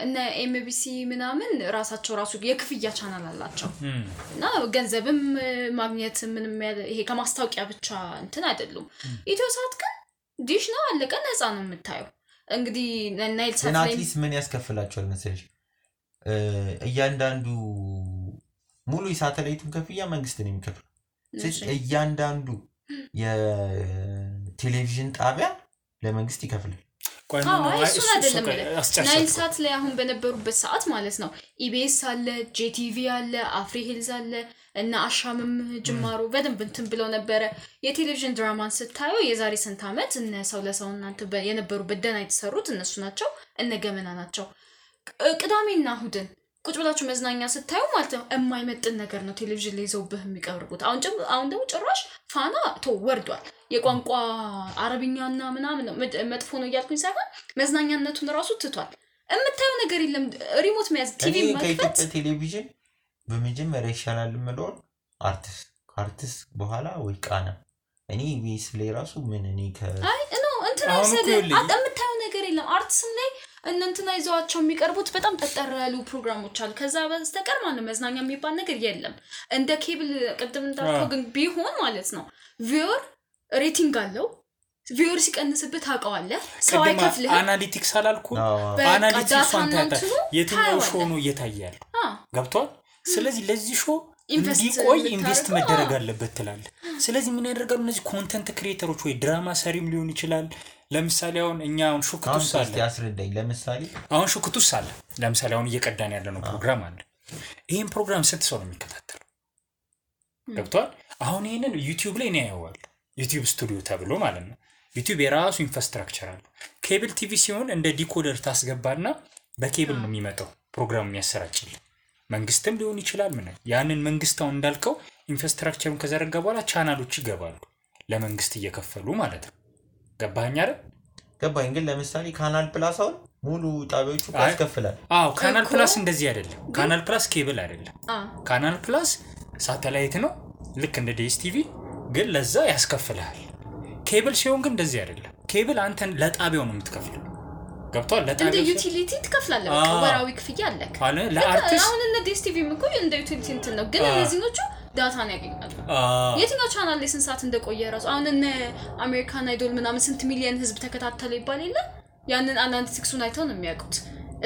S1: እነ ኤምቢሲ ምናምን ራሱ የክፍያ ቻናል አላቸው እና ገንዘብም ማግኘት ምንም ይሄ ከማስታወቂያ ብቻ እንትን አይደሉም። ኢትዮሳት ግን ዲሽ ነው አለቀ ነፃ ነው የምታየው። እንግዲህ ናይል ሳት ላይ
S3: ምን ያስከፍላቸዋል መሰለሽ? እያንዳንዱ ሙሉ የሳተላይቱን ከፍያ መንግስት ነው የሚከፍለው። ስለዚህ እያንዳንዱ የቴሌቪዥን ጣቢያ ለመንግስት ይከፍላል።
S1: እሱን አይደለም ናይል ሳት ላይ አሁን በነበሩበት ሰዓት ማለት ነው ኢቢኤስ አለ፣ ጄቲቪ አለ፣ አፍሪ ሂልዝ አለ እና አሻምም ጅማሩ በደንብ እንትን ብለው ነበረ። የቴሌቪዥን ድራማን ስታየው የዛሬ ስንት ዓመት እነ ሰው ለሰው እናንተ የነበሩበት ደና የተሰሩት እነሱ ናቸው፣ እነ ገመና ናቸው። ቅዳሜና እሁድን ቁጭ ብላችሁ መዝናኛ ስታዩ ማለት ነው የማይመጥን ነገር ነው ቴሌቪዥን ላይ ይዘውብህ የሚቀርቡት። አሁን ደግሞ ጭራሽ ፋና ወርዷል። የቋንቋ አረብኛና ምናምን ነው መጥፎ ነው እያልኩኝ ሳይሆን መዝናኛነቱን ራሱ ትቷል። የምታየው ነገር የለም። ሪሞት መያዝ ቲቪ መክፈት
S3: ቴሌቪዥን በመጀመሪያ ይሻላል የምለው አርቲስት በኋላ ወይ ቃና እኔ ቢስ ላይ ራሱ ምን እኔ
S1: አይ ነው እንትና የምታየው ነገር የለም። አርቲስም ላይ እንትና ይዘዋቸው የሚቀርቡት በጣም ተጠር ያሉ ፕሮግራሞች አሉ። ከዛ በስተቀር ማለት መዝናኛ የሚባል ነገር የለም። እንደ ኬብል ቅድም እንዳልከው ግን ቢሆን ማለት ነው ቪወር ሬቲንግ አለው። ቪወር ሲቀንስበት ታውቀዋለህ። ሰው አይከፍልህ።
S2: አናሊቲክስ አላልኩ? አናሊቲክስ አንተ የትኛው ሾው ነው እየታያል ገብቷል። ስለዚህ ለዚህ ሾው እንዲቆይ ኢንቨስት መደረግ አለበት ትላል። ስለዚህ ምን ያደርጋሉ እነዚህ ኮንተንት ክሪኤተሮች ወይ ድራማ ሰሪም ሊሆን ይችላል። ለምሳሌ አሁን እኛ አሁን ሹክቱስ አለ
S3: ያስረዳኝ። ለምሳሌ
S2: አሁን ሹክቱስ አለ ለምሳሌ አሁን እየቀዳን ያለነው ፕሮግራም አለ። ይሄን ፕሮግራም ስንት ሰው ነው የሚከታተለው ገብቷል። አሁን ይሄንን ዩቲዩብ ላይ ነው ያያዋል። ዩቲዩብ ስቱዲዮ ተብሎ ማለት ነው። ዩቲዩብ የራሱ ኢንፍራስትራክቸር አለ። ኬብል ቲቪ ሲሆን እንደ ዲኮደር ታስገባና በኬብል ነው የሚመጣው ፕሮግራም የሚያሰራጭል መንግስትም ሊሆን ይችላል። ምን ያንን መንግስታው እንዳልከው ኢንፍራስትራክቸሩን ከዘረጋ በኋላ ቻናሎች ይገባሉ ለመንግስት እየከፈሉ ማለት ነው። ገባኝ አይደል?
S3: ገባኝ። ግን ለምሳሌ ካናል ፕላስ አሁን ሙሉ ጣቢያዎቹ ያስከፍላል።
S2: ካናል ፕላስ እንደዚህ አይደለም። ካናል ፕላስ ኬብል አይደለም። ካናል ፕላስ ሳተላይት ነው ልክ እንደ ዲኤስቲቪ ግን ለዛ ያስከፍላል። ኬብል ሲሆን ግን እንደዚህ አይደለም። ኬብል አንተን ለጣቢያው ነው የምትከፍለው ገብቷል። ለጣቢያው
S1: እንደ ዩቲሊቲ ትከፍላለህ። ወራዊ ክፍያ አለክ
S2: ለአርቲስት።
S1: አሁን እንደ ዲኤስቲቪ እኮ እንደ ዩቲሊቲ እንትን ነው። ግን እነዚህኞቹ ዳታን ያገኛሉ። የትኛው ቻናል ላይ ስንት ሰዓት እንደቆየ ራሱ አሁን እነ አሜሪካን አይዶል ምናምን ስንት ሚሊዮን ህዝብ ተከታተለ ይባል የለ ያንን አናሊቲክሱን አይተው ነው የሚያውቁት።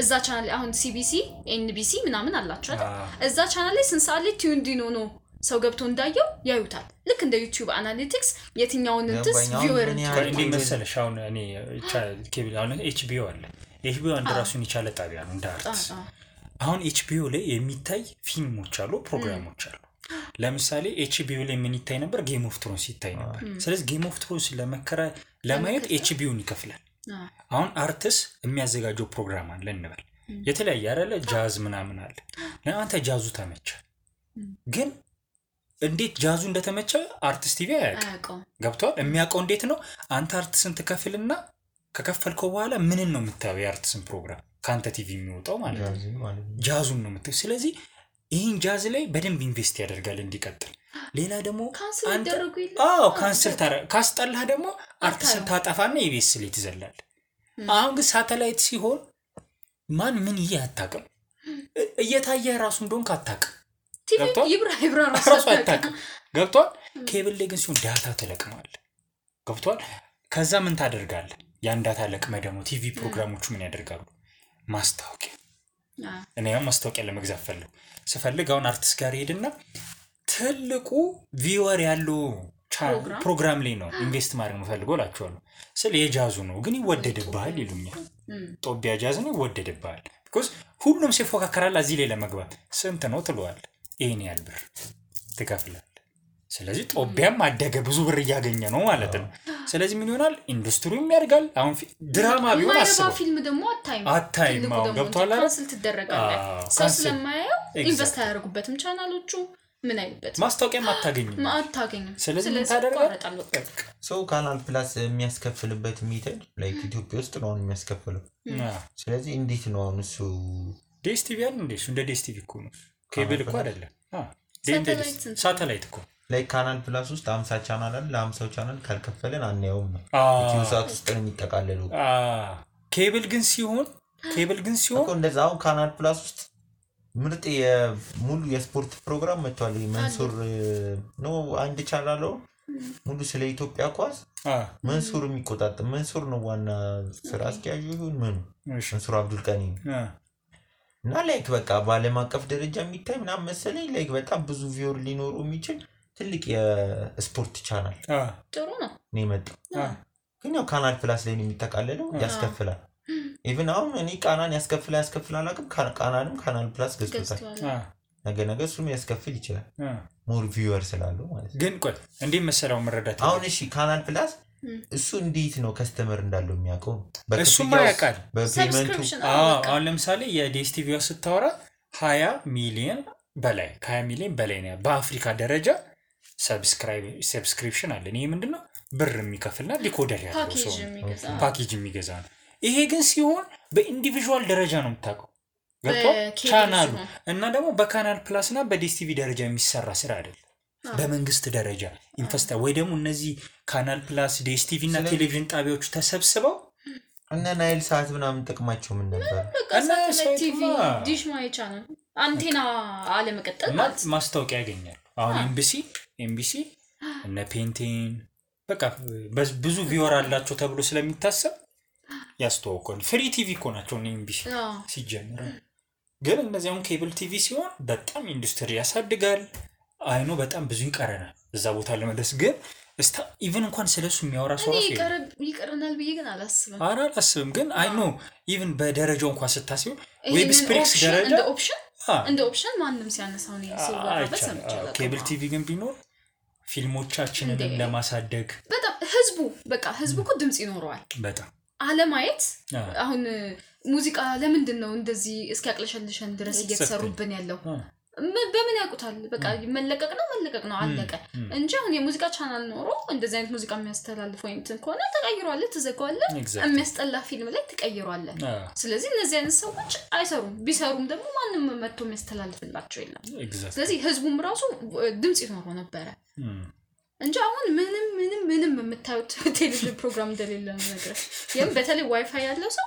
S1: እዛ ቻናል ላይ አሁን ሲቢሲ ኤንቢሲ ምናምን አላቸው አይደል? እዛ ቻናል ላይ ስንት ሰዓት ላይ ቲዩንዲኖ ነው ሰው ገብቶ እንዳየው ያዩታል። ልክ እንደ ዩቲዩብ አናሊቲክስ የትኛውን እንትስ ቪወር
S2: እንዴ መሰለሽ አሁን እኔ ኬብል አሁን ኤችቢኦ አለ። ኤችቢኦ አንድ ራሱን የቻለ ጣቢያ ነው እንደ አርትስ። አሁን ኤችቢኦ ላይ የሚታይ ፊልሞች አሉ፣ ፕሮግራሞች አሉ። ለምሳሌ ኤችቢኦ ላይ ምን ይታይ ነበር? ጌም ኦፍ ትሮንስ ይታይ ነበር። ስለዚህ ጌም ኦፍ ትሮንስ ለማየት ኤችቢኦን ይከፍላል። አሁን አርትስ የሚያዘጋጀው ፕሮግራም አለ እንበል የተለያየ አይደለ ጃዝ ምናምን አለ። ለአንተ ጃዙ ተመቸ ግን እንዴት ጃዙ እንደተመቸ አርቲስት ቲቪ አያውቅም ገብቷል። የሚያውቀው እንዴት ነው? አንተ አርቲስትን ትከፍልና ከከፈልከው በኋላ ምንን ነው የምታየው? የአርቲስትን ፕሮግራም ካንተ ቲቪ የሚወጣው ማለት ነው ጃዙን ነው የምታየው። ስለዚህ ይህን ጃዝ ላይ በደንብ ኢንቨስት ያደርጋል እንዲቀጥል። ሌላ ደግሞ ካንስል ካስጠላህ ደግሞ አርቲስትን ታጠፋና ኢቢኤስ ላይ ትዘላል። አሁን ግን ሳተላይት ሲሆን ማን ምን አታውቅም። እየታየ ራሱ እንደሆንክ አታውቅም።
S1: ቲቪ ይብራ ራሱ
S2: አታውቅም ገብቷል። ኬብል ላይ ግን ሲሆን ዳታ ተለቅመዋል ገብቷል። ከዛ ምን ታደርጋለህ? ያን ዳታ ለቅመህ ደግሞ ቲቪ ፕሮግራሞቹ ምን ያደርጋሉ? ማስታወቂያ እኔ ያው ማስታወቂያ ለመግዛት ስፈልግ አሁን አርቲስት ጋር ሄድና ትልቁ ቪወር ያለው ፕሮግራም ላይ ነው ኢንቨስት ማድረግ ነው ፈልጎ ላችኋለሁ። ስለ የጃዙ ነው ግን ይወደድብሃል ይሉኛል። ጦቢያ ጃዝ ነው ይወደድብሃል። because ሁሉም ሲፎካከራል እዚህ ላይ ለመግባት ስንት ነው ትሏል ይሄን ያህል ብር ትከፍላለህ ስለዚህ ጦቢያም አደገ ብዙ ብር እያገኘ ነው ማለት ነው ስለዚህ ምን ይሆናል ኢንዱስትሪውም ያድጋል አሁን ድራማ ቢሆን አስበው
S1: ፊልም ደግሞ
S2: አታይም ገብቷል አይደል
S1: ካንስል ትደረጋለህ ሰው ስለማያየው ኢንቨስት ያደርጉበትም ቻናሎቹ ምን አይበት
S2: ማስታወቂያም አታገኝም ስለዚህ ምን ታደርጋለህ
S3: ሰው ካናል ፕላስ የሚያስከፍልበት ሜተድ ላይክ ኢትዮጵያ ውስጥ ነው የሚያስከፍለው ስለዚህ እንዴት ነው እሱ
S2: ዲኤስቲቪ አይደል እንደ ዲኤስቲቪ እኮ ነው ኬብል እኮ አይደለም ሳተላይት እኮ
S3: ላይክ ካናል ፕላስ ውስጥ 50 ቻናል አለ ለ50 ቻናል ካልከፈለን አንያውም ነው ዩቲዩብ ውስጥ ነው የሚጠቃለለው
S2: ኬብል ግን ሲሆን
S3: እኮ እንደዛው ካናል ፕላስ ውስጥ ምርጥ የሙሉ የስፖርት ፕሮግራም መጥቷል መንሱር ነው አንድ ቻናል ነው ሙሉ ስለ ኢትዮጵያ ኳስ መንሱር የሚቆጣጠር መንሱር ነው ዋና ስራ አስኪያጁ ይሁን መንሱር አብዱል ቀኒ እና ላይክ በቃ ባለም አቀፍ ደረጃ የሚታይ ምናምን መሰለኝ ላይክ በጣም ብዙ ቪውር ሊኖሩ የሚችል ትልቅ የስፖርት ቻናል
S1: ጥሩ ነው
S3: የመጣው ግን ያው ካናል ፕላስ ላይ ነው የሚተካለለው ያስከፍላል ኢቭን አሁን እኔ ቃናን ያስከፍላል አቅም ቃናንም ካናል ፕላስ ገዝቶታል ነገ እሱም ያስከፍል ይችላል ሞር ቪውወር ስላለው ማለት
S2: ግን ቆይ እንዴ መሰለው መረዳት
S3: አሁን እሺ ካናል ፕላስ እሱ እንዴት ነው ከስተመር እንዳለው የሚያውቀው
S2: እሱማ ያውቃል
S3: በፔመንቱ
S2: አሁን ለምሳሌ የዲኤስቲቪው ስታወራ 20 ሚሊዮን በላይ ከ20 ሚሊዮን በላይ ነው በአፍሪካ ደረጃ ሰብስክሪፕሽን አለ ይሄ ምንድነው ብር የሚከፍልና ዲኮደር ያለው ሰው ፓኬጅ የሚገዛ ነው ይሄ ግን ሲሆን በኢንዲቪጁዋል ደረጃ ነው የምታውቀው ቻናሉ እና ደግሞ በካናል ፕላስ እና በዲኤስቲቪ ደረጃ የሚሰራ ስራ አይደል በመንግስት ደረጃ ኢንቨስታ ወይ ደግሞ እነዚህ ካናል ፕላስ ዲኤስቲቪ እና ቴሌቪዥን ጣቢያዎች ተሰብስበው
S3: እና ናይል ሳት ምናምን ጥቅማቸው ምን ነበር
S1: እና ቲቪ ዲሽ ማይ ቻናል አንቴና አለ መቀጠል ማለት
S2: ማስታወቂያ ያገኛል አሁን ኤምቢሲ እና ፔንቲን በቃ ብዙ ቪውወር አላቸው ተብሎ ስለሚታሰብ ያስተዋውቃል ፍሪ ቲቪ እኮ ናቸው ኤምቢሲ ሲጀምር ግን እነዚያውን ኬብል ቲቪ ሲሆን በጣም ኢንዱስትሪ ያሳድጋል አይኖ በጣም ብዙ ይቀረናል እዛ ቦታ ለመድረስ ግን እስታ ኢቭን እንኳን ስለሱ የሚያወራ ሰው
S1: ይቀረናል ብዬ ግን
S2: አላስብም ግን አይኖ ኢቭን በደረጃው እንኳን ስታስበው ዌብ ስፕሪክስ ደረጃ
S1: እንደ ኦፕሽን ማንንም ሲያነሳው ነው ሲወራበት ሰምቻለሁ
S2: ኬብል ቲቪ ግን ቢኖር ፊልሞቻችንን ለማሳደግ
S1: በጣም ህዝቡ እኮ ድምጽ ይኖረዋል
S2: በጣም
S1: አለማየት አሁን ሙዚቃ ለምንድን ነው እንደዚህ እስኪያቅለሸልሸን ድረስ እየተሰሩብን ያለው በምን ያውቁታል በቃ መለቀቅ ነው አለቀ እንጂ አሁን የሙዚቃ ቻናል ኖሮ እንደዚህ አይነት ሙዚቃ የሚያስተላልፈው እንትን ከሆነ ተቀይሯል ተዘጋዋል የሚያስጠላ ፊልም ላይ ተቀይሯል ስለዚህ እነዚህ አይነት ሰዎች አይሰሩም ቢሰሩም ደግሞ ማንንም መጥቶ የሚያስተላልፍላቸው የለም ስለዚህ ህዝቡም ራሱ ድምጽ ይኖረው ነበር እንጂ አሁን ምንም የምታዩት ቴሌቪዥን ፕሮግራም እንደሌለ ነው ነገር በተለይ ዋይፋይ ያለው ሰው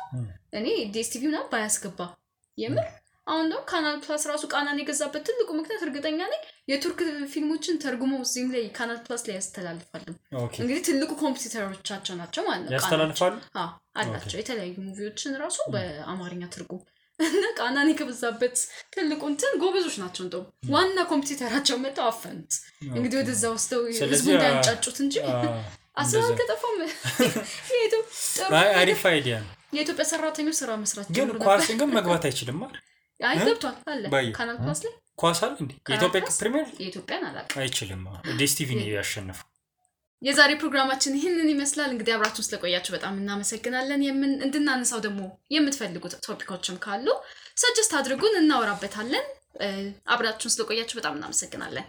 S1: እኔ ዲኤስቲቪ ነው ባያስገባ የምር አሁን ነው ካናል ፕላስ ራሱ ቃናን የገዛበት ትልቁ ምክንያት እርግጠኛ ነኝ የቱርክ ፊልሞችን ተርጉሞ እዚህም ላይ ካናል ፕላስ ላይ ያስተላልፋሉ እንግዲህ ትልቁ ኮምፒውተሮቻቸው ናቸው ማለት ነው
S2: ያስተላልፋሉ
S1: አላቸው የተለያዩ ሙቪዎችን ራሱ በአማርኛ ትርጉም እና ቃናን የገዛበት ትልቁ እንትን ጎበዞች ናቸው እንደው ዋና ኮምፒውተራቸው መጣው አፈንት እንግዲህ ወደዛ ወስደው ህዝቡ እንዳንጫጩት እንጂ አስራው ከጠፋም
S2: አሪፍ አይዲያ
S1: የኢትዮጵያ ሰራተኞች ስራ መስራት
S2: ግን ኳስን ግን መግባት አይችልም ማለት
S1: አይገብቷል አለ ካናል ፕላስ ላይ
S2: ኳስ አለ እንዴ የኢትዮጵያ ፕሪሚየር
S1: የኢትዮጵያን አላውቅም
S2: አይችልም ዲኤስቲቪ ነው ያሸነፈው
S1: የዛሬ ፕሮግራማችን ይሄንን ይመስላል እንግዲህ አብራችሁን ስለቆያችሁ በጣም እናመሰግናለን እንድናነሳው ደግሞ የምትፈልጉት ቶፒኮችም ካሉ ሰጀስት አድርጉን እናወራበታለን አብራችሁን ስለቆያችሁ በጣም እናመሰግናለን